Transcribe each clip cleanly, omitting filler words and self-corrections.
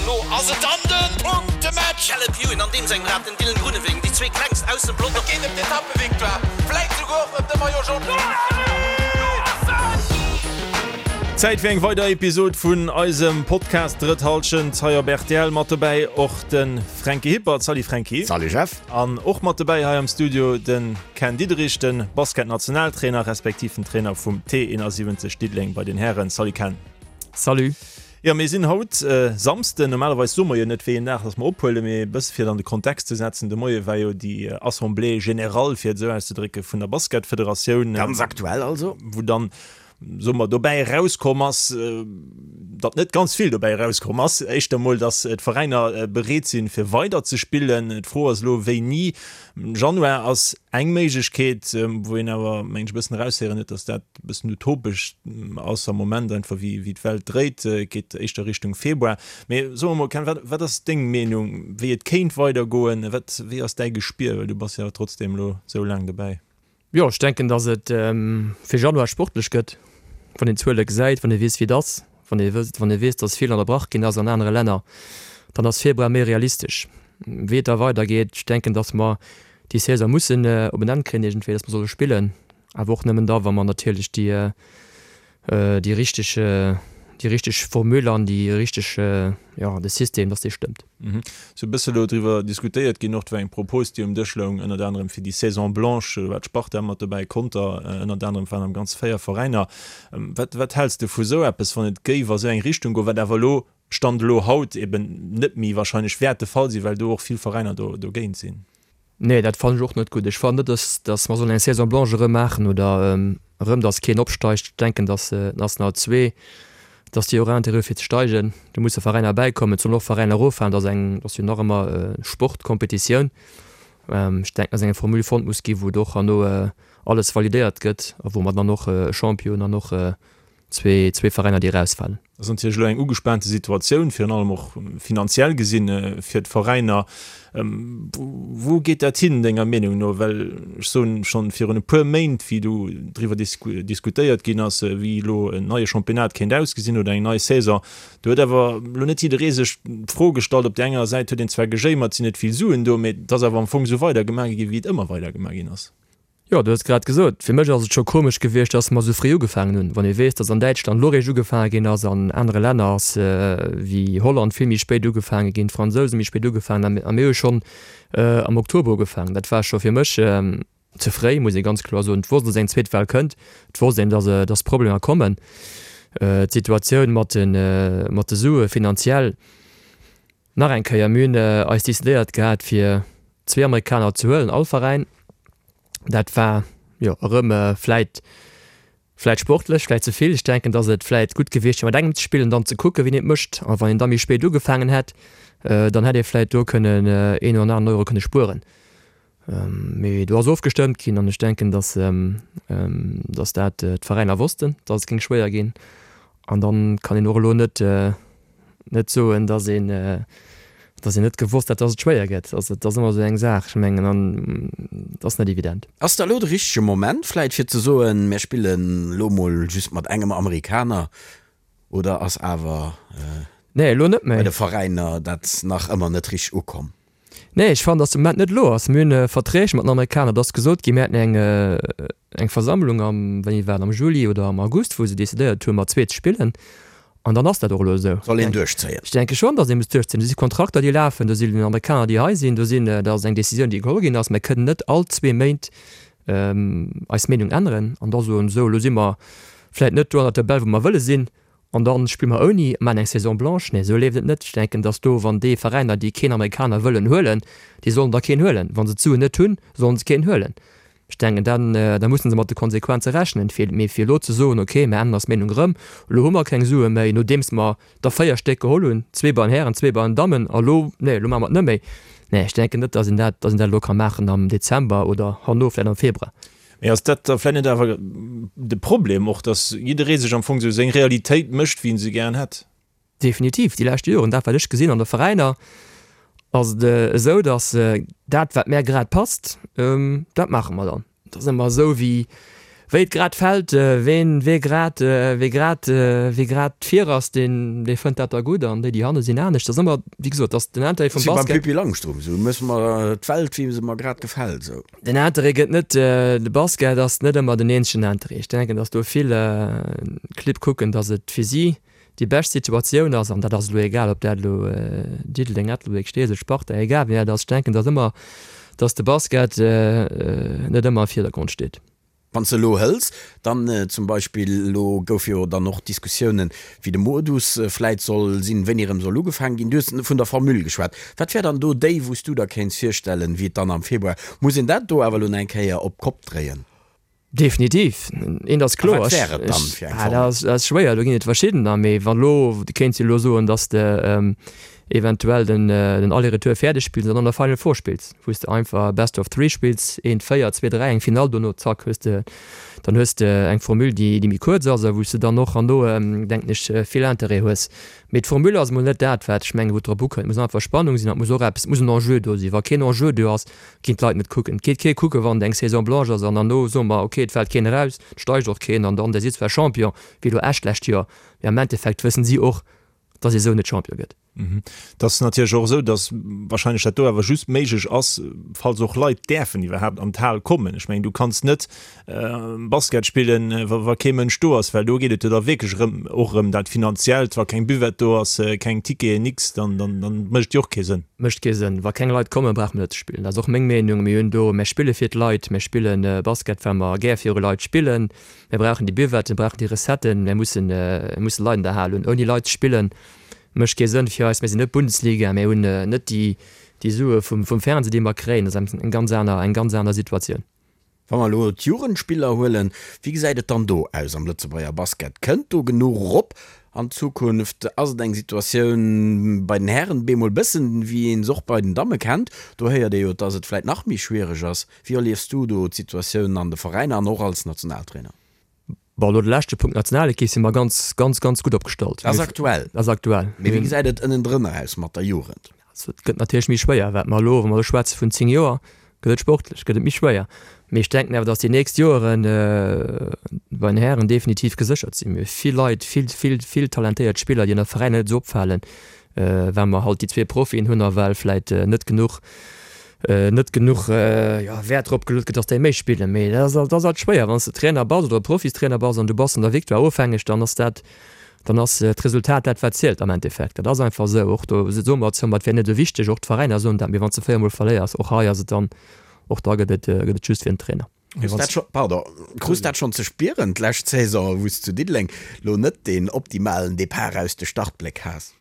An elo ass et dann de Punktematch! Caleb Ewan an deem sengem Rad, den Dylan Groenewegen, déi zwee klengst aus dem Pelotong. Et geet ëm d'Etappevictoire, vläit souguer och ëm de Maillot Jaune. Zäit fir eng weider Episod vun eisem Podcast Drëtt Hallschent hei op rtl. Mat dobäi och de Fränki Hippert. Salut Fränki. Salut Jeff. An och mat dobäi hei am Studio de Ken Diederich, de Basketnationaltrainer respektiv den Trainer vum T71 Diddeleng bei den Hären. Salut Ken. Salut. Jo, mir sinn haut Samsden. Normalerweis soe mer jo net, wéi een Dag dass mer ophuelen, mee e bësse fir et an de Kontext ze setzen, de Moie war jo déi Assemblée générale, fir et esou auszedrécken, vun der Basketfederatioun. Ganz aktuell also. Wou dann, soe mer, dobäi erauskomm ass, datt net ganz vill dobäi erauskomm ass. Éischter emol, datt d'Veräiner bereet sinn, fir weider ze spillen. D'Fro ass elo, wéini. Januar ass eng Méiglechkeet, wou een awer, mengen ech, e bëssen eraushéieren huet, datt dat e bëssen utopesch ass am Moment, einfach wéi wéi d'Welt dréit. Et geet éischter Richtung Februar. Mee so emol, Ken, wat wat ass deng Meenung, wéi et kéint weidergoen? Wat wéi ass däi Gespier, well du bass jo awer trotzdeem elo esou laang dobäi? Jo, ech denken, datt et fir Januar sportlech gëtt, wann een d'Zuele gesäit, wann ee weess, wéi et ass, wann ee wësst, wann ee weess, datt vill ënnerbrach ginn ass an anere Länner, dann ass Februar méi realistesch. Wéi et da weidergeet, ech denken, datt mer déi Saison mussen op en Enn kréien iergendwéi, datt mer solle spillen, awer och nëmmen da, wa mer natierlech déi déi richteg, déi richteg Formule an déi richteg, jo, de System, dass dee stëmmt. Sou e bësse elo driwwer diskutéiert ginn och, et war eng Propos, déi um Dësch loung, ënnert anerem fir déi Saison blanche, do war d'Sparta mat dobäi, Conter ënnert anerem, et waren am Ganze 4 Veräiner. Wat, wat häls de vu sou eppes, wann et géif a sou eng Richtung goen, wat awer elo, Stand elo haut, eben net méi wahrscheinlech wäert de Fall sinn, well do och vill Veräiner do, dogéint sinn? Nee, dat fannen ech och net gutt. Ech fannen net, dass, dass mer sollen eng Saison blanche erëm maachen oder erëm, dass keen opsteigt. Ech denken, dass d'National 2, dass déi och Intérêt hu fir ze steigen. Do musse Veräiner bäikommen. Et sollen och Veräiner eroffalen. Dat ass eng, dat ass jo nach ëmmer Sportkompetitioun. Ech denken, dass eng Formule fonnt muss ginn, wou et och herno alles validéiert gëtt a wou mer dann och e Champion an och zwee Veräiner, déi erausfalen. Ass natierlech elo eng ugespaante Situatioun, virun allem och finanziell gesinn, fir d'Veräiner. Wou geet dat hin, denger Meenung no? Well ech soen, schonn virun e puer Méint, wéi do driwwer diskutéiert ginn ass, wéi elo en neie Championnat kéint ausgesinn oder eng nei Saison, do huet awer elo net jidderee sech d'Fro gestallt. Op där enger Säit huet een zwar gejéimert, et sinn net vill Suen do, mee et ass awer am Fong esou weidergemaach gi wéi et ëmmer weidergemaach ginn ass. Jo, du hues grad gesot, fir mech ass et scho komesch gewiescht, dass mer esou fréi ugefaangen hunn. Wann ee weess, dass an Däitschland elo réischt ugefaange ginn ass, an anere Länner ass wéi Holland vill méi spéit ugefaange ginn, d'Fransouse méi spéit ugefaangen a mir hu schonn am Oktober ugefaangen. Dat war scho fir mech ze fréi, muss ee ganz kloer soen. Et wosst, dass eng zweet Well kënnt, et wosst een, dass dass Problemer kommen. D'Situatioun mat de mat de Sue finanziell, Nach eng Kéier, mir hunn eis decidéiert gehat fir zwee Amerikaner ze huelen, all Veräin. Dat war jo erëm vläit, vläit sportlech, vläit ze vill. Ech denken, datt et vläit gutt gewiescht wier mat engem ze spillen, dann ze kucken, wien et mécht. A wann een da méi spéit ugefaangen hätt, dann hätt ee vläit do kënnen een oder aneren Euro kënne spueren. Mee do ass ofgestëmmt ginn an ech denken, datt, datt dat d'Veräiner wossten, datt et géing schwéier ginn. An dann kann een och elo net, net soen, datt een, datt een net gewosst hätt, datt et schwéier gëtt. Also et ass ëmmer esou eng Saach, ech mengen, an et ass net evident. Ass da elo de richtege Moment vläit fir ze soen, mir spillen elo mol just mat engem Amerikaner oder ass awer Nee, elo net méi. bei de Veräiner dat nach ëmmer net richteg ukomm? Nee, ech fannen, datt de Moment net elo ass. Mir hunn Verträg mat den Amerikaner, et ass gesot ginn, mir hätten eng, eng Versammlung am, wéini war et, am Juli oder am August, wou se decidéiert hunn, mat zwee ze spillen. An dann ass dat och elo esou. Soll een duerchzéien. Ech denke schonn, datt ee muss duerchzéien. Do si Kontrakter, déi lafen, do sinn Amerikaner, déi hei sinn, do sinn, dat ass eng Decisioun, déi geholl ginn ass. Mir kënnen net all zwee Méint eis Meenung änneren an da soen, esou, elo si mer vläicht net do an der Tabell, wou mer wëlle sinn, An dann spille mer ouni a maachen eng Saison blanche. Nee, esou leeft et net. Ech denken, dass do, wann déi Veräiner, déi keen Amerikaner wëllen huelen, déi sollen da keen huelen. Wa se d'Suen net hunn, sollen se keen huelen. Ech denken, dann, da mussen se mat de Konsequenze rechnen. Fir, mee fir elo ze soen, okay, mir änneren eis Meenung erëm, elo hu mer keng Sue méi, nodeems mer der 4 Stéck geholl hunn, zwee bei den Hären, zwee bei den Dammen, a elo, nee, elo maache mer et net méi. Nee, ech denken net, dass een dat, dass een dat elo ka maachen am Dezember oder herno vläicht am Februar. Mee ass dat da vläicht net awer de Problem och, datt jidderee sech am Fong esou seng Realitéit mécht, wéi en se gären hätt? Definitiv. Déi lescht Joren, dat wat ech gesinn an de Veräiner, ass et esou, datt dat wat mär grad passt, dat maache mer dann. Et ass ëmmer esou wéi. Wéi et grad fält, ween, wee grad, wee grad, wee grad vir ass, deen, dee fënnt dat da gutt an déi, déi hanne sinn, anescht. Dat ass ëmmer, wéi gesot, dat ass den Interêt vum Basket. Wéi beim Pippi Langstrumpf, esou musse mer d'Welt, wéi se mer grad gefält, esou. Den Interêt gëtt net, de Basket ass net ëmmer den eenzegen Interêt. Ech denken, datt do vill Clibb kucken, datt et fir si déi bescht Situatioun ass, an dat ass elo egal, ob dat elo Diddeleng, Ettelbréck, Steesel, Sparta, egal wien dat ass. Ech denken, datt ëmmer, datt de Basket net ëmmer am Virdergrond steet. Wann s de elo hëls, dann zum Beispill, elo gouf jo dann och Diskussiounen, wéi de Modus vläit soll sinn, wéini erëm soll ugefaangen ginn. Du hues vun der Formule geschwat. Wat wär dann do déi, wou s du der kéints virstellen, wéi et dann am Februar, muss een dat do awer elo nach eng Kéier op d'Kopp dréien? Definitiv. Eent ass A kloer, wat wär et dann fir eng ah, dat Formule? ass, dat ass schwéier, do ginn et verschiddener. Mee wann elo, du kéints jo elo soen, datt s de eventuell den den Aller-Retour fäerdeg spills an dann der Final Four spills, wou s de einfach Best of Three spills, eent 4, zwee 3, eng Finall dono, zack hues de, dann hues de eng Formule déi déi méi kuerz ass a wou s de dann och herno denken ech vill Interêt hues. Mee d'Formule ass emol net dat wat ech mengen wou et drop ukënnt. Et muss einfach Spannung sinn an et muss och eppes, et muss en Enjeu do sinn. Wa keen Enjeu do ass, ginn d'Leit net kucken. Et geet kee kucken, wann et eng Saison blanche ass an herno soe mer, ok et fält keen eraus, et steigt och keen an dann, der sidd zwar Champion, wéi elo Esch d'lescht Joer, mee am Endeffekt wëssen si och, dass ee sou net Champion gëtt. Et ass natierlech och esou, dass wahrscheinlech dat do awer just méiglech ass, falls och Leit däerfen iwwerhaapt an d'Hal kommen. Ech mengen, du kanns net Basket spillen, wa kee Mënsch do ass, well do geet et jo da wierklech erëm och erëm dat Finanziellt. Wa keng Buvette do ass, keng Ticketen, nix, dann dann mécht et jo och kee Sënn. Mécht kee Sënn. Wa keng Leit kommen, brauche mer net ze spillen. Dat ass och meng Meenung. Mir hunn do, mir spille fir d'Leit, mir spille Basket, well mer gär viru Leit spillen. Mir brauchen déi Buvetten, mir brauchen déi Recetten, mir mussen, mir musse Leit an der Hal hunn. Ouni Leit ze spillen, mécht kee Sënn fir eis. Mir sinn net Bundesliga, mir hunn net déi, déi Sue vum, vum Fernseh, déi mer kréien. Dat ass eng ganz aner, eng ganz aner Situatioun. Wa mer elo d'Jugendspiller huelen, wéi gesäit et dann do aus am Lëtzebuerger Basket? Kënnt do genuch erop an Zukunft? Ass et eng Situatioun bei den Hären bemol bëssen, wéi een se och bei den Damme kennt? Do héiert ee jo, dass et vläit nach méi schwiereg ass. Wéi erliefs du do d'Situatioun an de Veräiner an och als Nationaltrainer? Bon, elo de leschte Punkt, Nationalekipp, si mer ganz, ganz, ganz gutt opgestallt. Dat ass aktuell. Dat ass aktuell. Mee wéi gesäit et ënnendrënner aus mat der Jugend? Also et gëtt natierlech méi schwéier, wat mer elo, wa mer elo schwätze vun 10 Joer, gëtt et sportlech, gëtt et méi schwéier. Mee ech denken awer, datt déi nächst Joeren bei den Hären definitiv geséchert sinn. Mir hu vill Leit, vill, vill, vill talentéiert Spiller, déi an der Veräiner net esou opfalen, well mer halt déi zwee Profien hunn a well vläit net genuch net genuch Wäert drop geluet gëtt, dass déi méi spillen. Mee dat ass dat ass alt schwéier, wann s de Trainer bass oder Profistrainer bass an du bass an der Victoire ofhängeg, dann ass dat, dann ass d'Resultat dat wat zielt am Endeffekt. Dat ass einfach esou. Och do soe mer zwar, et wär net esou wichteg, och d'Veräiner soen dat, mee wann s de 4 mol verléiers, och hei ass et dann, och da gëtt et gëtt et just fir den Trainer. Krus dat scho, pardon, krus dat schonn ze spieren d'lescht Saison, wou s zu Diddeleng lo net deen optimalen Depart aus de Startbléck has?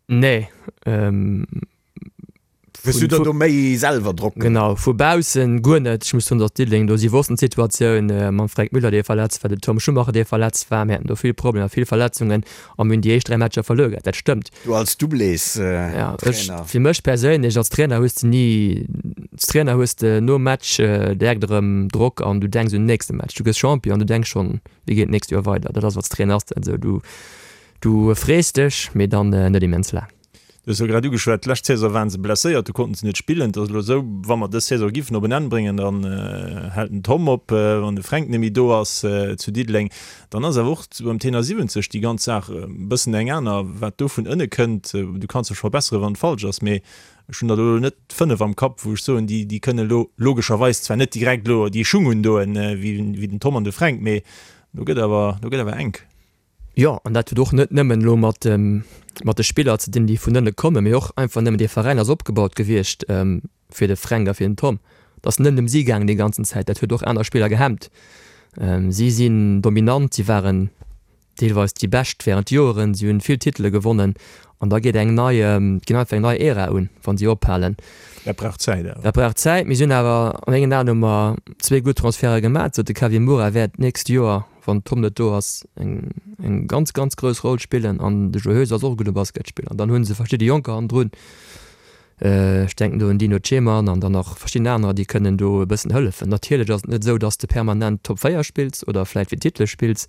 Nee. Hues du der do méi selwer Drock gemaach? Genau, vu baussen guer net. Ech muss soen, datt Diddeleng do, si wossten d'Situatioun mam Fränk Müller, dee verletzt war, dem Tom Schumacher, dee verletzt war. Mir haten do vill Problemer, vill Verletzungen a mir hunn déi éischt 3 Matcher verluer gehat, dat stëmmt. Du als Doublés-Trainer. Ja, ech, fir mech perséinlech als Trainer hues de ni, als Trainer hues de nom Match direkt erëm Drock an du denks un den nächste Match. Du gëss Champion an du denks schonn, wéi geet d'nächst Joer weider. Dat ass als Trainer ass dat esou, du, du frees dech, mee dann net immens laang. Du hues jo grad ugeschwat, d'lescht Saison waren se blesséiert, do konnten se net spillen. Et ass elo esou, wa mer dës Saison giffen op en Enn bréngen, dann hält den Tom op, wann de Fränk net méi do ass zu Diddeleng. Dann ass awer och beim Tenor 70 déi ganz Saach e bëssen eng aner, wat do vun ënne kënnt. Du kanns dech verbesseren, wann et falsch ass, mee ech hunn der elo net 5 am Kapp, wou ech soen, déi kënne elo logescherweis zwar net direkt elo déi Schung undoen, wéi den Tom an de Fränk, mee do gëtt awer, do gëtt awer enk. Jo, an dat huet och net nëmmen elo mat mat de Spiller ze dinn, déi vun ënne kommen, mee och einfach nëmmen dee Veräin ass opgebaut gewiescht fir de Fränk a fir den Tom. Et ass net ëm si gaangen déi ganzen Zäit, dat huet och aner Spiller gehemmt. Si sinn dominant, si waren deelweis déi Bescht wärend Joeren, si hunn vill Titele gewonnen an da geet eng nei, ginn einfach eng nei Ära un, wa si ophalen. Dat brauch Zäit awer. Dat brauch Zäit. Mir sinn awer, a mengen Aen hu mer zwee gutt Transferte gemaach, sou de Kevin Moura wäert d'nächst Joer wann Tom net do ass, eng eng ganz ganz grouss Roll spillen an de Joe Heuser ass och e gudde Basketspiller an dann hu se verschidde Jonker hannendrun, ech denken do un Dino Ceman an dann nach verschidden anerer, déi kënnen do e bëssen hëllefen. Natierlech ass et net esou, datt s de permanent Top 4 spills oder vläit fir Titele spills,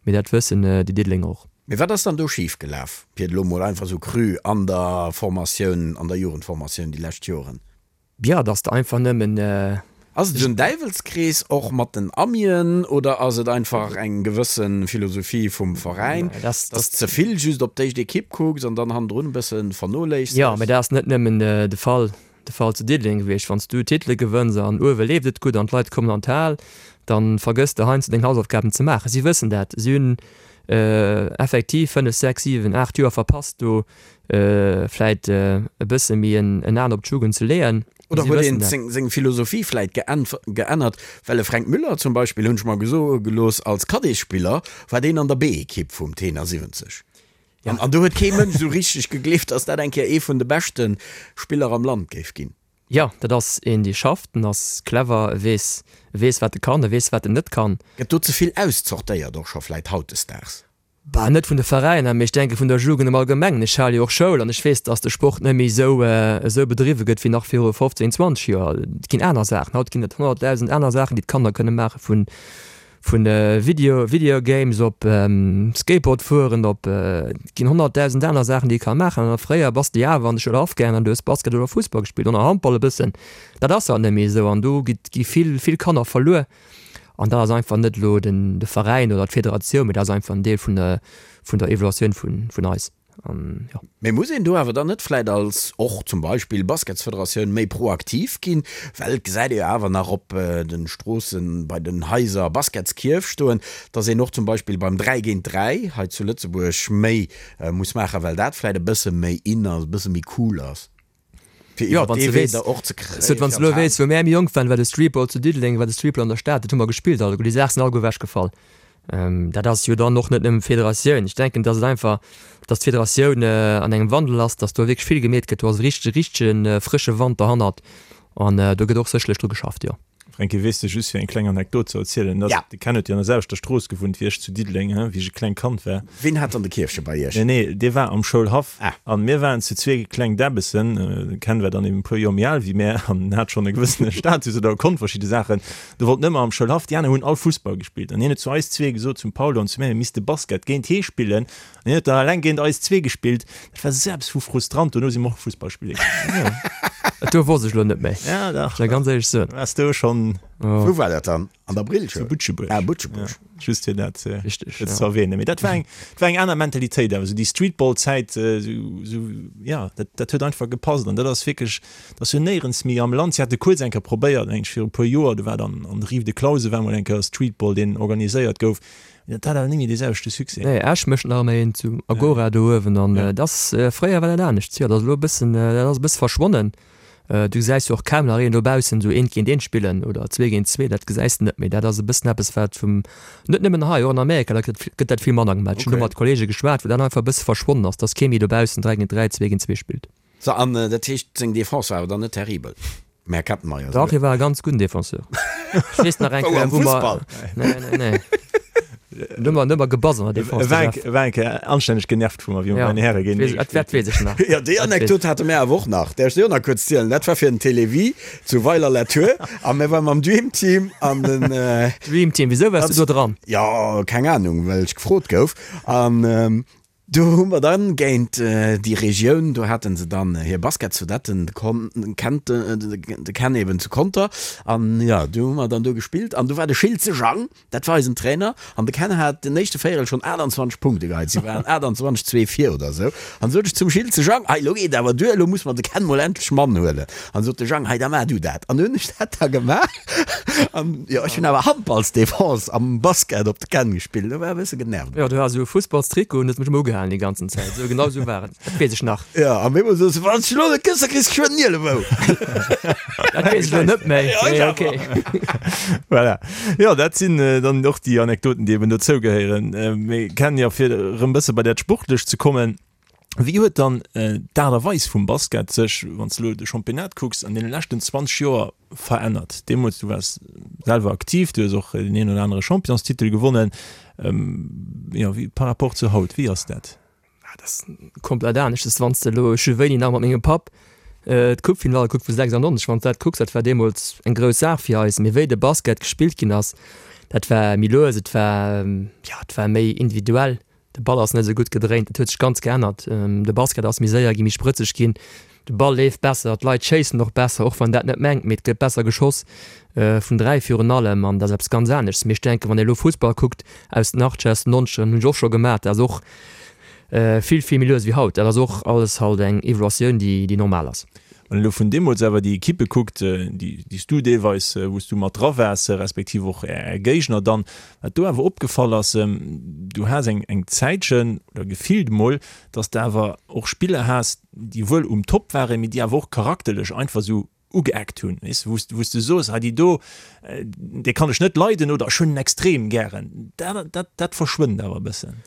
mee dat wëssen déi Diddelenger och. Mee wat ass dann do schif gelaf, fir et elo mol einfach esou cru, an der Formatioun, an der Jugendformatioun déi lescht Joren? Jo, dass de einfach nëmmen. Ass et esou en Däiwelskrees och mat den Amien oder ass et einfach eng gewësse Philosophie vum Veräin, dass de ze vill just op d'éischt Ekipp kucks an dann hannendrun e bësse vernoléissegst? Jo, mä dat ass net nëmmen de Fall, de Fall zu Diddeleng gewiescht. Wann s du Titele gewënns an uewe leeft et gutt an d'Leit kommen an d'Hal, da vergëss de heiansdo deng Hausaufgaben ze maachen. Si wëssen dat. Si hunn effektiv 5, 6, 7, 8 Joer verpasst do vläit e bësse méi en An op d'Jugend ze leeën. Oder huet een seng Philosophie vläit geännert? Well e Fränk Müller zum Beispill, hunn ech mer gesoe gelooss, als Cadetsspiller war deen an der B-Ekipp vum Tenor 70. An do huet kee Mënsch esou richteg gegleeft, datt dat eng Kéier ee vun de beschte Spiller am Land géif ginn. Jo, dat ass een, dee schafft, en ass clever, e weess, e weess wat e kann, e weess wat en net kann. Gëtt do ze vill auszortéiert och scho vläit hautdesdaags? Bah, net vun de Veräiner, mee ech denke vun der Jugend am Allgemengen. Ech hale jo och Schoul an ech weess, dass de Sport net méi esou esou bedriwwe gëtt wéi nach viru 15, 20 Joer. Et ginn aner Saachen. Haut ginn et 100.000 aner Saachen, déi d'Kanner kënne maachen, vun vun Video Video Games op Skateboard fueren op et ginn 100.000 aner Saachen, déi ee ka maachen. An fréier bass de jo awer an de Schoulhaff gaangen an du hues Basket oder Fussball gespillt oder Handball e bëssen. Dat ass haut net méi esou an do gi vill vill Kanner verluer. An dat ass einfach net elo den de Veräin oder d'Federatioun, mee dat ass einfach en Deel vun der vun der Evaluatioun vun vun eis. An jo. Mee muss een do awer dann net vläit als och zum Beispill Basketsfederatioun méi proaktiv ginn? Well et gesäit ee jo awer nach op de Stroossen, bei den Haiser Basketskierf stoen, dass een och zum Beispill beim 3 géint 3 hei zu Lëtzebuerg méi muss maachen, well dat vläit e bësse méi in ass, e bësse méi cool ass. Fir iwwer dee Wee der och ze kréien. Wann s de elo weess, wou mär méi jonk waren, war de Streetball zu Diddeleng, war de Streetball an der Stad, dat hu mer gespillt alleguer. Déi Saache sinn alleguer ewechgefall. Dat ass jo dann och net nëmmen d'Federatioun. Ech denken, datt et einfach, datt d'Federatioun an engem Wandel ass, datt do wierklech vill gemeet gëtt. Do ass e richtege, richtege frësche Wand derhannert an do gëtt och sécherlech dru geschafft, jo. Fränki, weess de, just fir eng kleng Anekdot ze erzielen, dass, de Ken huet jo an der selwechter Strooss gewunnt wéi ech zu Diddeleng, he, wéi ech e klengt Kand war. Ween hat dann de Kierfche bei iech? Nee, nee, dee war am Schoulhaff. Ah. An mir waren zu zwee kleng Däbbessen, de Ken war dann eben e puer Joer méi al wéi mär an hat schonn e gewëssene Status oder konnt verschidde Saachen. Do wollt en ëmmer am Schoulhaff, déi aner hunn all Fussball gespillt. An hien huet zu eis zwee gesot, zum Paul an zu mär, mir misste Basket géint hee spillen. An hien huet dann eleng géint eis zwee gespillt. Dat war esou eppes vu frustrant. Dono si mer och Fussball spille gaangen. Dat do wosst ech elo net méi. Ja, dach. Soll ganz éierlech soen. Waars du schonn. Wou war dat dann? An der Brillschoul? Zu Butschebuerg. Ah, Butschebuerg. Ja, just fir dat Richtig, ja. ze erwähnen. Mee dat war eng, dat war eng aner Mentalitéit awer. Esou déi Streetball-Zäit, esou, esou, ja, dat, dat huet einfach gepasst. An dat ass wierklech, dat ass jo néierens méi am Land. Si hate kuerz eng Kéier probéiert, mengen ech, viru e puer Joer, do war dann an der Rive de Clausen war mol eng Kéier Streetball, deen organiséiert gouf. Dat hat awer net méi dee selwechte Succès. Nee, Esch mécht nach ëmmer een zu Agora do uewen an dat ass, fréier war dat anescht. Jo, dat ass elo e bëssen, dat ass e bësse verschwonnen. Du gesäis jo och kaum nach een dobaussen esou eent géint eent spillen oder zwee géint zwee, dat gesäis de net méi. Dat ass e bëssen eppes, wat vum, net nëmmen hei, och an Amerika, da gëtt gëtt dat vill manner gemaach. Ech hunn do mat Kollege geschwat, wou dat einfach e bësse verschwonnen ass, dass kee méi dobaussen 3 géint 3, 2 géint 2 spillt. So, an dat heescht, seng Defense war awer dann net terribel, den Här Kettenmeyer? Dach, hie war e ganz gudden Defenseur. Ech weess nach eng Wou, Kéier, am wou mer. Fussball? Nee, nee, nee. Do hu mer, do hu mer gebass an der Defense, E war eng, e war eng Kéier anstänneg genervt vu mer, wéi mer bei den Häre géintenee Ja, dat, dat weess ech nach. Jo, déi Anekdot hate mär awer och nach. Däerf ech déi och nach kuerz zielen? Dat war fir den Télévie zu Weiler-la-Tour a mir ware mam Dream Team an den. Dream Team, wisou waars du do dran? Jo, keng Anung, well ech gefrot gouf. An Do hu mer dann géint déi Regioun, do haten se dann hir Basketsvedetten, de Con, kennt de Ken eben zu Conter, an jo, do hu mer dann do gespillt an do war de Schiltze Jang, dat war eisen Trainer, an de Ken hat den éischte Véierel schonn 28 Punkte geheit, si waren 28, 2 vir oder esou, an sot ech zum Schiltze Jang, hei elo geet awer duer, elo muss mer de Ken mol endlech Mann huelen, an sot de Jang, hei da maach du dat, an du hunn ech dat da gemaach. An jo, ech hunn awer Handballsdefense am Basket op de Ken gespillt, do war e bësse genervt. Jo, du has esou e Fussballstrikot un, hues mech ëmmer ugehalen déi ganzen Zäit. Esou, genau esou war et, dat weess ech nach. Jo, an bemol soos de, Wann s de elo net kënns, da kriss de geschwënn en Ielebou. Dat weess ech elo net méi, mee ok. Voilà. Jo, dat sinn dann och déi Anekdoten, déi eben dozou gehéieren. Mee Ken, jo, fir erëm e bësse bei dat Sportlecht ze kommen, Wéi huet dann d'Aart a Weis vum Basket sech, wann s de elo de Championnat kucks, an deene leschten 20 Joer verännert? Deemools, du waars selwer aktiv, du hues och deen een oder anere Championstitel gewonnen. Jo, wéi par rapport zu haut, wéi ass dat? Dat ass komplett anescht. Wann s de elo, ech hu wéini nach mat mengem Papp d'Coupefinall gekuckt vu 96, wann s de dat kucks, dat war deemools eng grouss Saach fir eis. Mee wéi de Basket gespillt ginn ass, dat war méi lues, et war, jo, et war méi individuell. De Ball ass net esou gutt gedréint, et huet sech ganz geännert. De Basket ass méi séier ginn, méi sprëtzeg ginn. De Ball leeft besser, d'Leit schéissen och besser, och wann een dat net mengt, mee et gëtt besser geschoss, vun 3 virun allem, an dat ass eppes ganz aneschts. Mee ech denken, wann ee elo Fussball kuckt aus den Achtzeger, aus den Nonzegeren, hunn ech och scho gemaach, dat ass och vill, vill méi lues wéi haut. Dat ass och alles halt eng Evoluatioun, déi, déi normal ass. Wann een elo vun deemools awer déi Ekippe kuckt, déi, déi s du deelweis, wou s du mat dra waars, respektiv och Är Géigner dann, wat do awer opgefall ass, du has eng, eng Zäitchen, oder gefillt emol, datt s de awer och Spiller has, déi wuel um Top waren, mee déi awer och charakterlech einfach esou ugeeckt hunn, weess de, wou s wou s de soos, hei déi do, déi kann ech net leiden oder ech hunn en extrem gären. Dat dat dat verschwënnt awer e bëssen.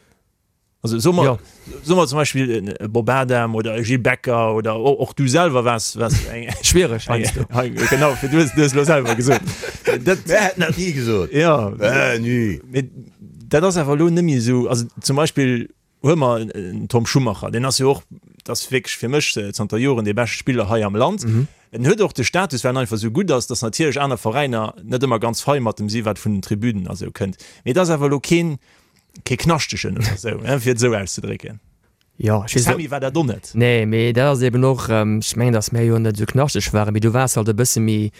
Also soe mer, soe mer zum Beispill e Bob Adam oder e Gilles Becker oder och du selwer waars waars eng. Schwiereg heiansdo. Genau, fir du hues du hues elo selwer gesot. Dat. Mir hätten dat ni gesot. Jo. Ni. Mee dat ass awer elo net méi esou. Also zum Beispill Huele mer en Tom Schumacher, deen ass jo och, dat ass wierklech fir mech zanter Joren dee beschte Spiller hei am Land. En huet och de Status, well en einfach esou gutt ass, datt natierlech aner Veräiner net ëmmer ganz fei mat em si wat vun den Tribünen a sou kënnt. Mee et ass awer elo keen, kee Knaschtegen oder sou, fir et esou auszedrécken. Jo, ech weess. Sammy war dat och net. Nee, mee dat ass eben och, ech mengen, datt mär jo net esou knaschteg waren, mee du waars halt e bësse méi,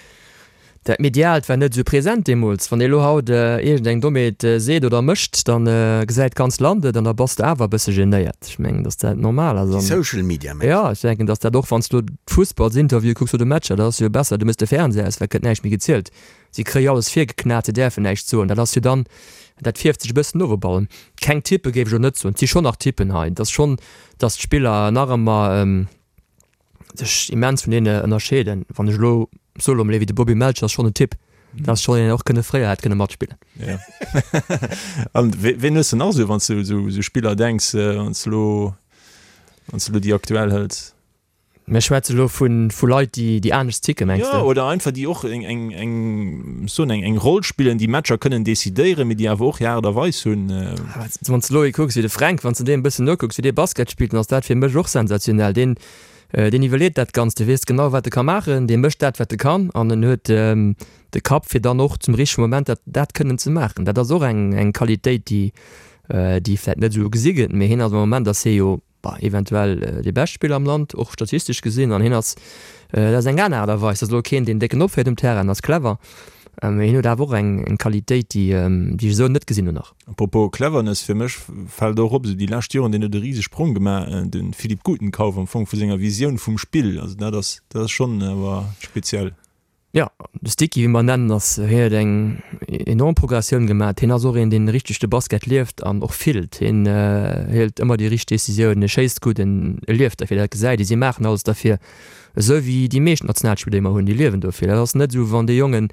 Dat Mediaalt war net esou present deemools. Wann ee lo haut iergend eng Dommheet seet oder mécht, da gesäit d'ganzt Land et an da bass de awer e bësse genéiert. Ech mengen, datt dat normal ass. Déi Social Media mengs de? Jo, ech denken, datt dat och, wann s du d'Fussballsinterviewe kucks oder Matcher, dat ass jo besser, du méchs de Fernseher aus, well et gëtt näischt méi gezielt. Si kréie alles virgeknat, se däerfen näischt soen. Dat ass jo dann, dat fierft sech e bëssen of op allem. Keng Typpe géif ech elo net soen. Et si schonn nach Typpen hei. Et ass schonn, datt d'Spiller nach ëmmer. sech immens vun deene ënnerscheeden. Wann ech elo soe lo mol ee wéi de Bobby Melcher ass schonn en Typ, dat ass schonn een, deen och kënne fréier hätt kënne matspillen. Ja. An ween hues de nach esou, wann s du esou esou Spiller denks, wann s du elo, wann s du elo déi aktuell hëls? Mir schwätze lo vu vu Leit, déi déi anescht ticken, mengs de? Jo, oder einfach déi och eng eng eng soen eng eng Roll spillen, déi Matcher kënnen decidéieren, mee déi awer och hir Aart a Weis hunn. Wann s de elo ee kucks wéi de Fränk, wann s de deem e bëssen nokucks, wéi dee Basket spillt, dann ass dat fir mech och sensationell. Deen deen iwwerleet dat Ganzt, dee weess genau, wat e ka maachen, dee mécht dat, wat e kann an en huet de Kapp, fir dann och zum richtege Moment dat dat kënnen ze maachen. Dat ass och eng eng Qualitéit, déi déi vläicht net esou gesi gëtt, mee hien ass am Moment ass hie jo Bah, eventuell dee beschte Spiller am Land, och statistesch gesinn. An hien ass, dat ass eng aner Aart a Weis, dat ass elo keen, deen décken opféiert um Terrain, en ass clever, mee hien huet awer och eng, eng Qualitéit, déi, déi ech esou net gesinn hunn nach. Apropos Cleverness, fir mech fält och op, esou déi lescht Joren, deen huet e rise Sprong gemaach, de Philippe Gutenkauf am Fong vu senger Visioun vum Spill. Also dat ass, dat ass schonn awer speziell. Jo, de Sticky, wéi mer en nennen, ass, hien huet eng enorm Progressioun gemaat. Hien ass och een, deen richteg de Basket lieft an och fillt. Hien hëlt ëmmer déi richteg Decisioun, e schéisst gutt, en lieft derfir, dat gesäit ee. Si maachen alles derfir, esou wéi déi meescht Nationalspiller, déi mer hunn, déi liewen dofir. Dat ass net esou, wann déi Jongen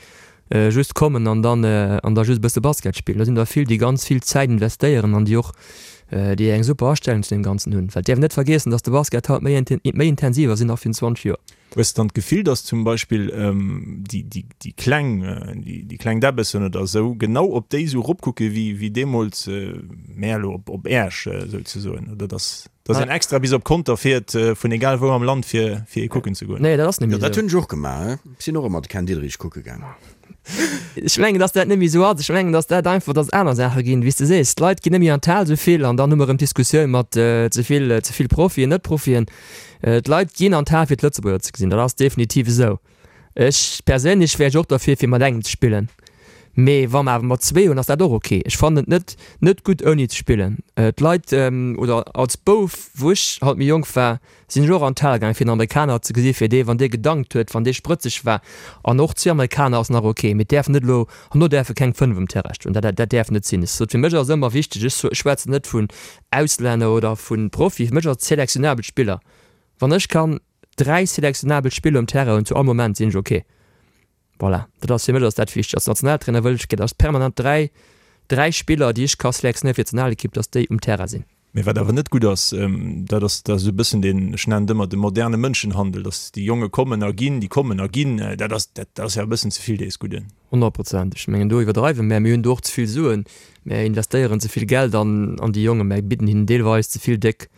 just kommen an dann an da just e bësse Basket spillen. Do sinn der vill, déi ganz vill Zäit investéieren an déi och déi eng super Astellung zu deem Ganzen hunn. Well et däerf een net vergiessen, datt de Basket haut méi méi intensiv ass wéi nach virun 20 Joer. Hues de dann d'Gefill, dass zum Beispill déi kleng, déi kleng Däbbessen oder esou genau op déi esou eropkucke wéi deemools mär elo op Äerch souzesoen? Oder dass dass een extra bis op Conter fiert vun egal wou am Land fir fir ee kucken ze goen? Nee, dat ass net méi esou. Jo, dat hunn ech och gemaach. Ech sinn och ëmmer de Ken Diederich kucke gaangen. Ech mengen, dass dat net méi esou ass. Ech mengen, dass dat einfach, dass et aner Saache ginn, wéi s de sees. D'Leit ginn net méi an d'Hal esou vill an dann hu mer erëm d'Diskussioun mat ze vill, ze vill Profien, Net-Profien. D'Leit ginn an d'Hal fir d'Lëtzebuerger ze gesinn, dat ass definitiv esou. Ech perséinlech wär ech och derfir fir mat engem ze spillen, mee wa mer awer mat zwee hunn, ass dat och ok. Ech fannen et net net gutt ouni ze spillen. D'Leit, oder als Bouf wou ech halt méi jonk war, sinn ech och an d'Hal gaangen fir en Amerikaner ze gesi fir dee wann dee gedankt huet, wann dee sprëtzeg war. An och zwee Amerikaner ass nach ok, mee et däerf net elo, herno däerfe keng 5 um Terrain stoen, dat dat däerf net sinn. Ech sot, fir mech ass ëmmer wichteg, ech schwätzen net vun Auslänner oder vu Profi, fir mech ass et selektionabel Spiller. Wann ech kann 3 selektionabel Spiller um Terrain hunn zu all Moment, sinn ech ok. Voilà, dat ass fir mech ass dat wichteg. Als Nationaltrainer wëll ech, dass permanent 3, 3 Spiller, déi ech ka selektionéieren fir d'Nationalekipp, dass déi um Terrain sinn. Mee wat awer net gutt ass, dat ass, dat ass esou e bëssen deen, ech nennen et ëmmer de moderne Mënschenhandel, dass déi Jonge kommen a ginn, déi kommen a ginn, dat ass, dat ass jo e bëssen ze vill dees Gudden. Honnertprozent. Ech mengen, do iwwerdreiwe mär. Mir hunn do och ze vill Suen. Mär investéieren ze vill Geld an an déi Jongen. Mär bidden hinnen deelweis ze vill déck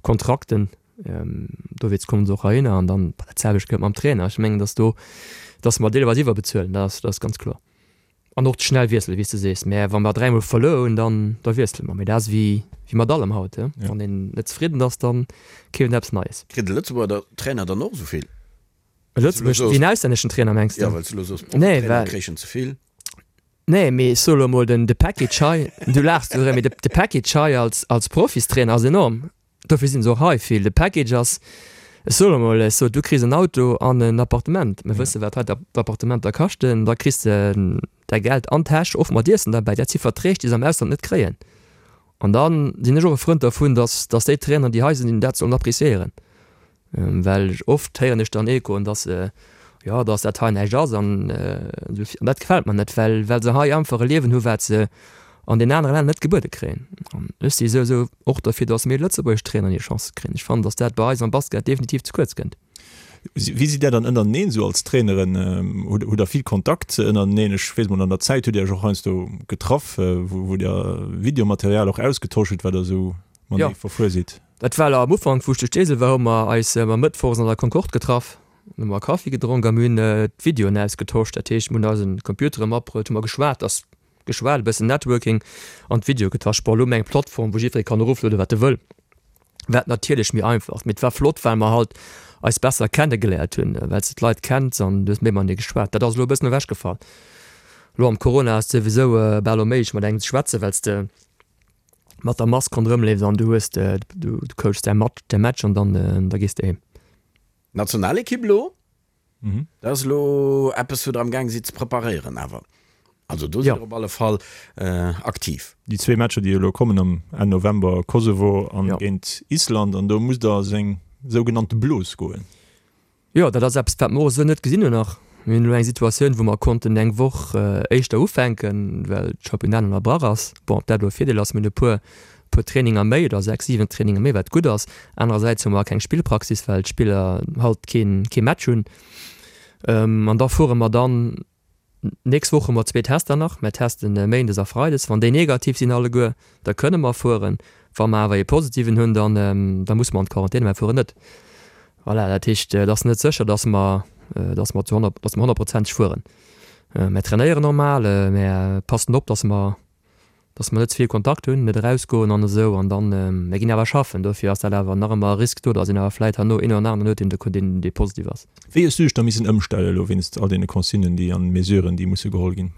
Kontrakten. Dowéinst kommen se och heihinner. An dann dat selwecht gëllt mam Trainer. Ech mengen, datt do, datt mer deelweis iwwerbezuelen, dat ass, dat ass ganz kloer. An och schnell wiesselen, wéi s de sees. Mä wa mer dräimol verluer hunn, dann da wiessele mer. Mee dat ass wéi wéi mat allem haut, he. Wann een net zefridden ass, da keeft een eppes Neies. Kritt e Lëtzebuerger Trainer dann och esou vill? E Lëtzebuerg, wéi en auslänneschen Trainer, mengs de? Jo, well s de elo soos, Profitrainer kréichen ze vill. Nee, mee ech soe lo emol, den de Package hei, du laachs do erëm, mee de Package hei als als Profistrainer ass enorm. Dofir sinn se och hei vill. De Package ass, ech soe lo mol, ech sot, du kriss en Auto an en Appartement. Mir wësse wat hei d'Appartementer kaschten. Da kriss de däi Geld an d'Täsch, och mat Iessen derbäi. Dat si Verträg, déi se am Ausland net kréien. An da sinn ech och e Frënd dervun, datt datt déi Traineren, déi hei sinn, dat sollen appreciéieren. Well oft héieren ech dann Echoen, dass, jo, dass dat hei näischt ass an esou vir. An dat gefält mer net, well, well se hei einfach e Liewen hu wat se an den anere Länner net gebuede kréien. An ech si souwisou och derfir, dass méi lëtzebuergesch Traineren hir Chance kréien. Ech fannen, dass dat bei eis am Basket definitiv ze kuerz kënnt. Wéi sidd Där dann ënnerteneen esou als Traineren? Hutt Der vill Kontakt ënnerteneen? Ech weess mol, an der Zäit hutt Dir Iech och heiansdo getraff, wou Dir Videomaterial och ausgetosch hutt, wat Der esou matenee verfuer sidd. Dat war am Ufank, wou ech zu Steesel war, hu mer eis ëmmer mëttwochs an der Concorde getraff, hu mer Kaffi gedronk a mir hunn d'Videoen ausgetosch. Dat heescht, mir hunn eise Computere matbruet, hu mer geschwat, ass geschwat, e bëssen Networking an d'Videoe getosch. Bon, elo hu mer eng Plattform, wou jiddweree kann eroflueden, wat e wëll, wat natierlech méi einfach ass. Mee et war flott, well mer halt eis besser kennegeléiert hunn, well s de d'Leit kenns an du hues méi matenee geschwat. Dat ass elo e bëssen ewechgefall. Elo am Corona ass et souwisou bal onméiglech, mat engem ze schwätzen, well s de mat der Mask ronderëm leefs an du hues de, du coachs däi Match, däi Match an dann da gees de heem. D'Nationalekipp elo, dat ass elo eppes wou der am gaang sidd ze preparéieren awer. Also do sidd der op alle Fall aktiv. Déi zwee Matcher déi elo kommen am Enn November, Kosovo an géint Island, an do musst der a seng sougenannte Blos goen. Jo, dat ass eppes, wat mer och esou net gesinn hunn nach. Mir hunn elo eng Situatioun, wou mer konnten eng Woch éischter ufänken, well d'Championnat ënnerbrach ass. Bon, ob dat elo e Virdeel ass, mir hunn e puer, puer Traininger méi oder sechs, siwen Traininger méi, wat gutt ass. Anerersäits hu mer keng Spillpraxis, well d'Spiller halt keen, kee Match hunn. An da fuere mer dann Nächst Woch hu mer zwee Tester nach. Mer testen méindes a freides. Wann déi negativ sinn alleguer, da kënne mer fueren. Wa mer awer ee positiven hunn, dann da musse mer an d'Quarantän, mer fueren net. Voilà, dat heescht, et ass net sécher, dass mer, dass mer zu 100, dass mer honnertprozenteg fueren. Mer trainéieren normal, mer passen op, dass mer dass mer net ze vill Kontakt hunn, net erausgoen an esou an dann, mir ginn awer schaffen, dofir ass dat awer nach ëmmer e Risk do, dass een awer vläit herno een oder aneren huet, deen deen dee positiv ass. Wéi hues du dech da missen ëmstellen elo wéinst all deene Consignen déi an Mesuren déi musse geholl ginn?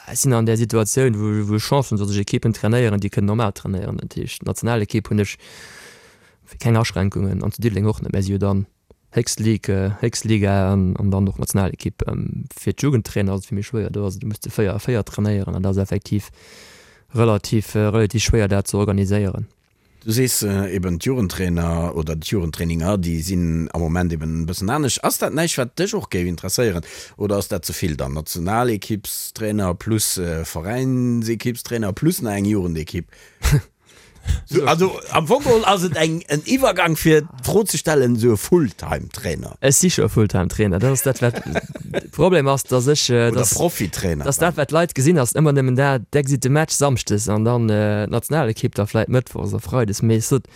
Ech sinn an där Situatioun wou wou ech Chance hunn, dass ech Ekippen trainéieren déi kënnen normal trainéieren. Dat heescht d'Nationalekipp hunn ech keng Aschränkungen an zu Diddeleng och net, mä si hu dann Héchst Ligue, héchst Liga an dann och Nationalekipp. Fir d'Jugendtrainer ass et vill méi schwéier. Do ass et, du muss zu 4 a 4 trainéieren an dat ass effektiv relativ, relativ schwéier dat ze organiséieren. Du sees eben d'Jugendtrainer oder d'Jugendtraininger, déi sinn am Moment eben e bëssen anescht. Ass dat näischt wat dech och géif interesséieren oder ass dat ze vill dann? Nationalekippstrainer plus Veräinsekippstrainer plus nach eng Jugendekipp? Also am Fong geholl ass et eng en Iwwergang fir d'Fro ze stellen, esou e Fulltime-Trainer. Ech si scho e Fulltime-Trainer, dat ass dat wat de Problem ass, datt ech, Oder Profitrainer datt dat wat d'Leit gesinn ass ëmmer nëmmen dat, d'Exit de Match samschdes an dann d'Nationalekipp da vläit mëttwochs a freides. Mee ech sot,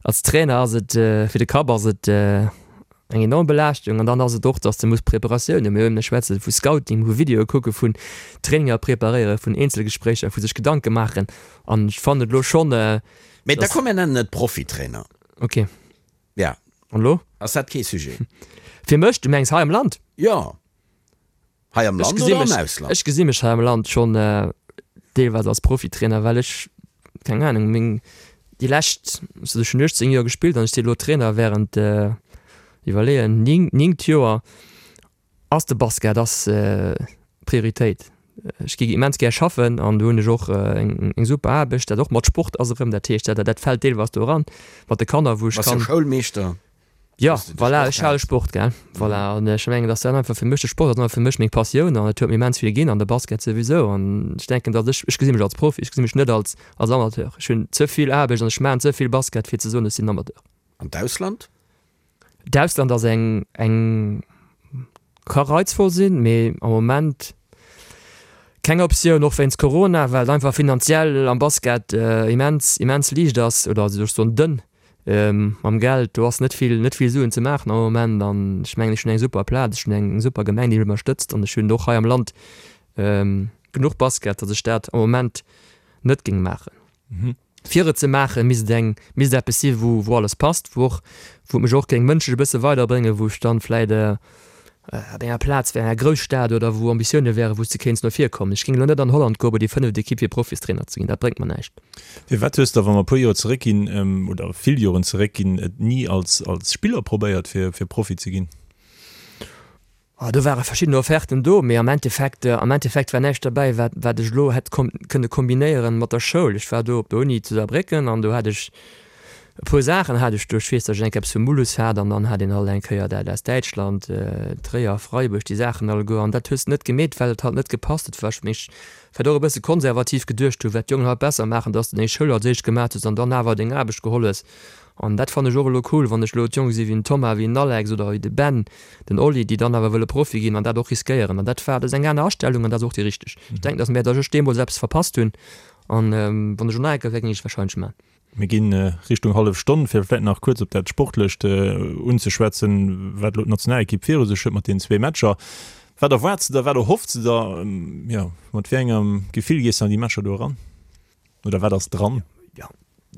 als Trainer ass et, fir de Kapp ass et eng enorm Belaaschtung an dann ass et och, dass de muss Preparatiounen, mir hunn, ech schwätze vu Scouting, vu Videoe kucke, vun Traininger preparéieren, vun Eenzelgespréicher, vu sech Gedanke maachen an ech fannen et elo schonn, Mee da komm mir nennen et Profitrainer. Ok. Ja. An elo? Ass dat kee Sujet? Fir mech? Du mengs hei am Land? Jo. Hei am Land oder am Ausland? Ech gesi mech hei am Land schonn deelweis als Profitrainer, well ech, keng Ahnung, meng déi lescht, also ech hunn 18 Joer gespillt an ech si elo Trainer wärend, iwwerleeën, 9 Joer. Ass de Basket ass Prioritéit. Ech gi immens gär schaffen an do hunn ech och eng super Aarbecht, dat och mat Sport ass erëm, dat heescht dat dat fält deelweis do eran, mat de Kanner wou ech kann. Bass jo Schoulmeeschter. Jo, voilà, ech hale Sport, gell. Voilà, an ech mengen, dass dat einfach fir mech, de Sport ass einfach fir mech meng Passioun an et huet mir immens vill ginn an de Basket souwisou. An ech denken, dass ech, ech gesi mech als Profi, ech gesi mech net als, als Amateur. Ech hunn ze vill Aarbecht an ech maachen ze vill Basket fir ze soen, ech sinn Amateur. An d'Ausland? D'Ausland ass eng, eng, ka reizvoll sinn, mee am Moment keng Optioun, och wéinst Corona, well et einfach finanziell am Basket immens, immens liicht ass oder soll ech soen dënn. Mam Geld, do ass net vill, net vill Suen ze maachen am Moment an ech mengen, ech hunn eng super Plaz, ech hunn eng super Gemeng, déi mech ënnerstëtzt an ech hunn och hei am Land genuch. genuch Basket, datt ech dat am Moment net géing maachen. Fir et ze maachen, misst et eng, misst et eppes si wou, wou alles passt, wou och, wou et mech och géing mënschlech e bësse weiderbréngen, wou ech dann vläit op enger Plaz wär, enger Grousstad oder wou Ambitioune wären, wou s de kéints no vir kommen. Ech géing elo net an Holland goe bei déi fënneft Ekipp fir Profistrainer ze ginn, dat bréngt mer näischt. Firwat hues de, wa mer e puer Joer zeréckginn, oder vill Joren zeréckginn, et ni als, als Spiller probéiert fir, fir Profi ze ginn? Oh, do ware verschidden Offerten do, mee am Endeffekt, am Endeffekt war näischt derbäi, wat, wat ech elo hätt kom kënne kombinéieren mat der Schoul. Ech war do op der Uni zu Saarbrécken an do hat ech e puer Saachen hat ech do. Ech weess, datt ech eng Kéier eppes vu Mulhouse hat an dann hat een halt eng Kéier dat aus Däitschland, Tréier, Freiburg, déi Saachen alleguer. An dat hues de net gemeet, well et halt net gepasst huet, well ech mech vläicht och e bësse konservativ geduecht hu wat d'Jongen haut besser maachen, datt s de deng Schoul als éischt gemaat hues an dann awer deng Aarbecht geholl hues. An dat fannen ech och elo cool, wann ech elo d'Jonge si wéi den Thomas, wéi den Alex oder wéi de Ben, den Oli, déi dann awer wëlle Profi ginn an dat och riskéieren. An dat war, dat ass eng aner Astellung an dat ass och déi richteg. Ech denken, datt mär, datt ech deemools eppes verpasst hunn an wann ech elo nach eng Kéier wär, géing ech et warscheinlech man. Mir gi Richtung hallef Stonn, fir vläicht nach kuerz op dat Sportlecht unzeschwätzen, wat elo d'Nationalekipp viru sech huet mat deenen zwee Matcher. Wat erwaarts de der, wat erhoffs de der, jo, mat wéi engem Gefill gees de an déi Matcher do eran? Oder wat ass dran? Jo,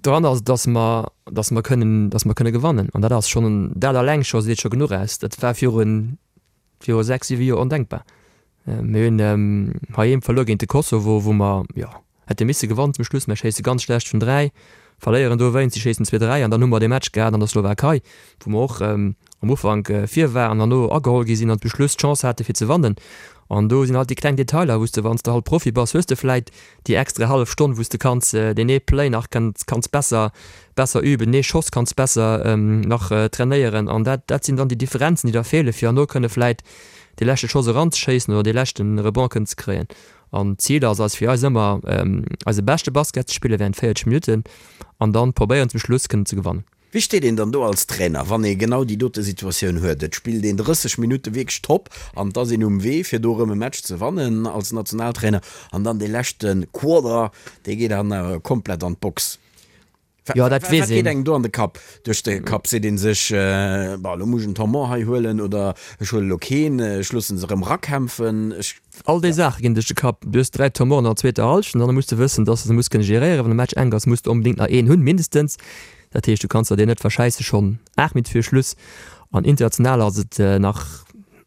dran ass, dass mer, dass mer kënnen, dass mer kënne gewannen. An dat ass schonn, dat alleng scho seet scho genuch aus. Dat war virun, viru 6, 7 Joer ondenkbar. Mir hunn heiheem verluer géint de Kosovo, wou mer, jo, hätte misse gewannen zum Schluss. Mir schéisse ganz schlecht vun 3, verléieren dowéinst, si schéissen zwee 3 an dann hu mer dee Match gehat an der Slowakei, wou mer och am Ufank vir waren an no ageholl gi sinn an zum Schluss d'Chance hate fir ze wannen. An do sinn halt déi kleng Detailer, wou s de, wann s de halt Profi bass, hues de vläit déi extra hallef Stonn, wou s de kanns deen ee Play nach kanns kanns besser besser üben, ee Schoss kanns besser nach trainéieren an dat dat sinn dann déi Differenzen, déi da feelen, fir herno kënne vläit dee leschte Schoss eranzeschéissen oder dee leschte Rebond kënnen ze kréien. An d'Zil ass eis fir eis ëmmer eise beschte Basket ze spille während 40 Minutten an dann probéieren zum Schluss kënnen ze gewannen. Wéi steet een dann do als Trainer, wann ee genau déi dote Situatioun huet? Et spillt een 30 Minutte wierklech top an et ass een um Wee, fir do erëm e Match ze wannen als Nationaltrainer an dann dee leschte Quarter, dee geet dann awer komplett an d'Box. Jo, dat weess een. Wat geet engem do an de Kapp, duerch de Kapp? Seet ee sech, Bon, elo muss ech en Temps-mort hei huelen oder ech huele elo keen, ech loosse se erëm erakämpfen, ech. All déi Saache ginn duerch de Kapp. Du hues 3 Tournoien an der zweeter Hallschent an da muss de wëssen, dass de se muss kënne geréieren. Wann de Match enk ass, muss de onbedéngt nach een hunn, mindestens. Dat heescht, du kanns der deen net verschäisse schonn 8 Minutte viru Schluss. An international ass et nach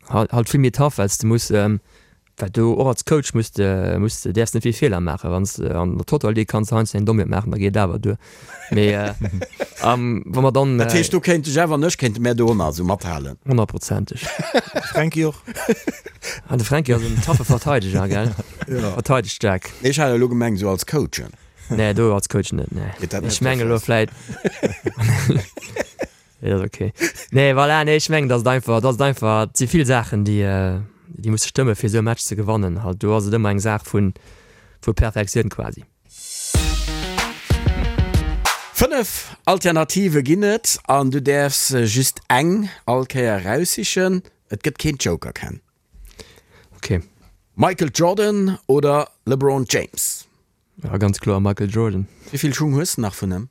halt vill méi tough, well s de muss, well du och als Coach muss de, muss de, däerfs net vill Feeler maachen. Wann s de an der Total League kanns de heiansdo eng Dommheet maachen, da geet et awer duer. Mee wa mer dann. Dat heescht, do kéint de Jeff an ech kéinte mär do och nach esou mathalen? Honnertprozenteg. De Fränki och. Ah, de Fränki ass en taffe Verteideger, gell? Jo. Verteidegt staark. Nee, ech hat elo gemengt esou als Coachen. Nee, do als Coach net, nee. Geet dat net Ech mengen elo vläit. Nee, dat ass ok. Nee, voilà, nee, ech mengen, datt et einfach, datt et einfach, et si vill Saachen, déi, déi musse stëmme fir esou e Match ze gewannen. Halt, do ass et ëmmer eng Saach vun, vu Perfektioun quasi. 5 Alternative ginn et an du däerfs just eng all Kéier eraussichen. Et gëtt keen Joker, Ken. Ok. Michael Jordan oder LeBron James? Ja, ganz kloer Michael Jordan. Wéi vill Schung hues de nach vun em?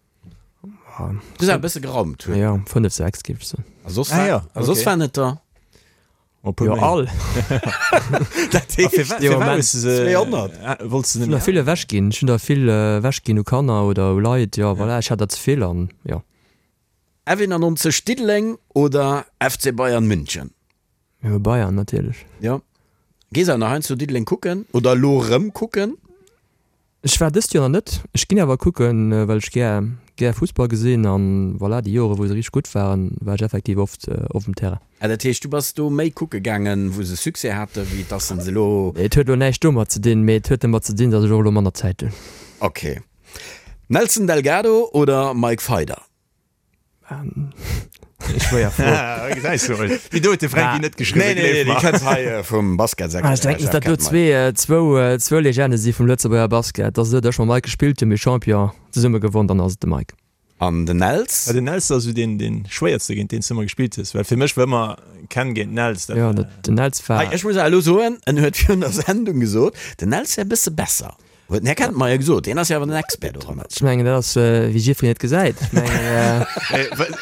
Du hues awer e bësse geraumt. Jo, 5, 6 géif ech soen. A soss war, a soss waren et der? Jo, all. Dat heescht, 200. Ech hunn der vill ewech ginn. Ech hunn der vill ewech ginn u Kanner oder u Leit. Jo, voilà, ech hat der ze vill an jo. F91 Diddeleng oder FC Bayern München? Jo, Bayern natierlech. Jo. Gees awer nach heiansdo Diddeleng kucken oder elo erëm kucken? Ech war dëst Joer nach net. Ech ginn awer kucken, well ech gär gär Fussball gesinn an voilà, déi Joere wou se richteg gutt waren, war ech effektiv oft op dem Terrain. Ah, dat heescht du bass do méi kucke gaangen, wou se Succès haten, wéi dass se elo. Et huet elo näischt domat ze dinn, mee et huet domat ze dinn, dass ech och elo manner Zäit hunn. Ok. Nelson Delgado oder Mike Feider? Schwéier Fro. Gesäis du emol. Déi do huet de Fränki net geschriwwen, Nee, nee, déi kënnt hei vum Basketsektor. Ech denken, datt do zwee, zwou, zwou Legende si vum Lëtzebuerger Basket. Datt esou, datt ech mam Mike gespillt hunn, mir Champion zesumme gewonn, dann ass et de Mike. An den Nels? Ja, den Nels ass esou deen, deen schwéierste, géint deen s de ëmmer gespillt hues. Well fir mech war ëmmer Ken géint Nels. Dat war. Jo, den Nels war. Hei, ech muss awer elo soen, en huet virun der Sendung gesot, den Nels wär e bësse besser. Huet den Här Kettenmeyer gesot, deen ass jo awer den Expert doranner. Ech mengen, dat ass wéi jiddwereen et gesäit. Ech mengen.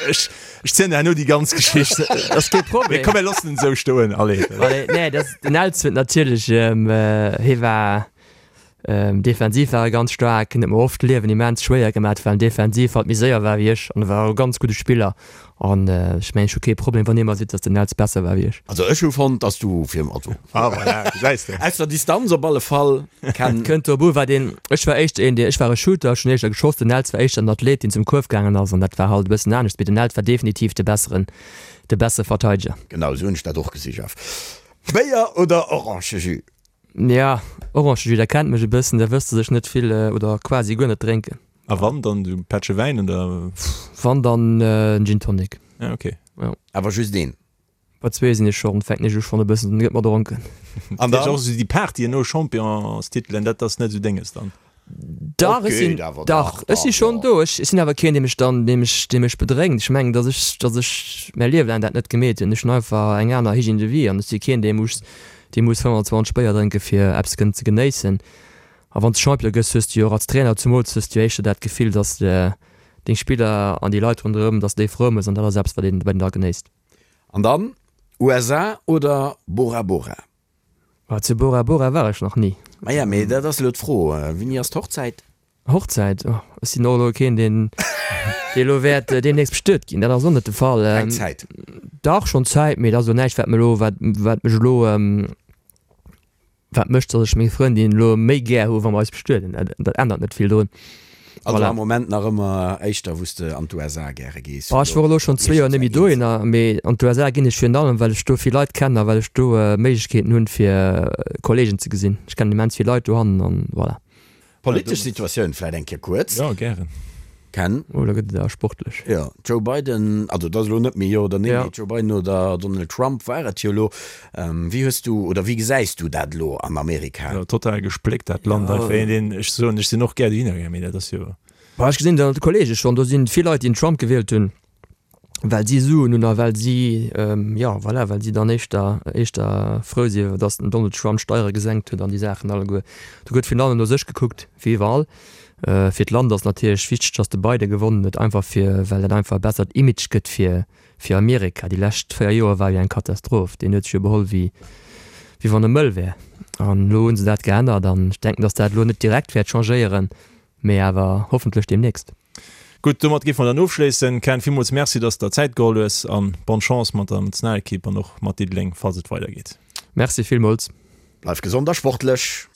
Ech, ech zielen der herno déi ganz Geschicht. Dat ass kee Problem. Mee komm, mir loossen en esou stoen, allez. Allez, nee, dat, den Els huet natierlech, hie war. Defensiv war e ganz staark, en huet mer oft d'Liewen immens schwéier gemat, well en defensiv halt méi séier war wéi ech an e war och e ganz gudde Spiller an ech mengen ech hu kee Problem wann ee mer seet, datt den Nels besser war wéi ech. Also ech hu fonnt, datt du fir, also Ah voilà, gesäis de. aus der Distanz op alle Fall Ken. Kënnt drop u wat een, ech war éischter een deen, ech war e Shooter, ech hunn éischter geschoss, den Nels war éischter en Athlet deen zum Kuerf gaangen ass an dat war halt e bëssen anescht, mee den Nels war definitiv de besseren, de bessere Verteideger. Genau esou hunn ech dat och gesi Jeff. Béier oder Orangejus? Ja, Orangejus, der kennt mech e bëssen, der wësst, dass ech net vill oder quasi guer net drénken. A wann, dann esou e Pättche Wäin oder? Wann, dann en Gin Tonic. Ah, okay. Jo. Awer just een? Bei zwee sinn ech schonn, fänken ech u schonn e bëssen, gëtt mer dronken. An dann? Och esou déi Partyen no Championstitelen, dat ass net esou denges dann? Dach, ech sinn, dach, ech si schonn do. Ech sinn awer keen, dee mech dann, dee mech, dee mech bedrénkt. Ech mengen, datt ech, datt ech mäi Liewe laang dat net gemeet hunn. Ech hunn einfach eng aner Hygiène de vie an ech si keen, dee muss, dee muss 25 Béier drénke fir eppes kënnen ze genéissen. A wann s de Champion gëss, hues de jo och als Trainer zumools hues de jo éischter dat Gefill, datt s de deng Spiller an déi Leit ronderëm, datt s de déi frou méchs an dat ass eppes, wat een, wat een da genéisst. An dann, USA oder Bora Bora? Ah, zu Bora Bora war ech nach ni. Maja, mee dat ass elo d'Fro, Wéini ass d'Hochzäit? Hochzäit? Oh, ech sinn och elo keen, deen, dee elo wäert deemnächst bestuet ginn. Dat ass och net de Fall. Keng Zäit? Dach, schonn Zäit, mee dat ass elo näischt, wat mir elo, wat, wat mech elo, Wat mécht, datt ech meng Frëndin elo méi gär hu wa mer eis bestueden. Dat ännert net vill drun. Also am Moment nach ëmmer éischter wou s de an d'USA gäre gees? Ech wor elo schonn zwee Joer net méi dohinner, mee an d'USA ginn ech virun allem well ech do vill Leit kennen a well ech do Méiglechkeeten hunn fir Kollegen ze gesinn. Ech kennen immens vill Leit dohannen an voilà. Politesch Situatioun vläit eng Kéier kuerz. Jo, gären. Ken. Oh, da gëtt et awer sportlech. Jo, Joe Biden, also et ass elo net méi Jo oder Nee, mee Joe Biden oder Donald Trump war et jo elo. Wéi hues du oder wéi gesäis du dat elo an Amerika? Jo, total gespléckt dat Land einfach. Een deen, ech soen, ech sinn och gär dohinner gaangen, mee dat ass jo. Bah, ech gesinn dat an de Kollege schonn, do sinn vill Leit, déi den Trump gewielt hunn. well si Suen hunn a well si, jo voilà, well si dann éischter, éischter frou sinn, datt den Donald Trump d'Steiere gesenkt huet an déi Saachen alleguer. Do gëtt virun allem no sech gekuckt, wéi iwwerall. Fir d'Land ass natierlech wichteg, datt de Biden gewonnen huet, einfach fir, well dat einfach e bessert Image gëtt fir, fir Amerika. Déi lescht 4 Joer war jo eng Katastroph. Deen huet sech jo beholl wéi, wéi wann e mëll wär. An elo hu se dat geännert an ech denken, datt dat elo net direkt wäert changéieren, mee awer hoffentlech deemnächst. Gutt, domat géife mer dann ofschléissen. Ken, villmools Merci, dass de der Zäit geholl hues an bonne Chance mat der Nationalekipp an och mat Diddeleng, falls et weidergeet. Merci villmools. Bleif gesond a sportlech!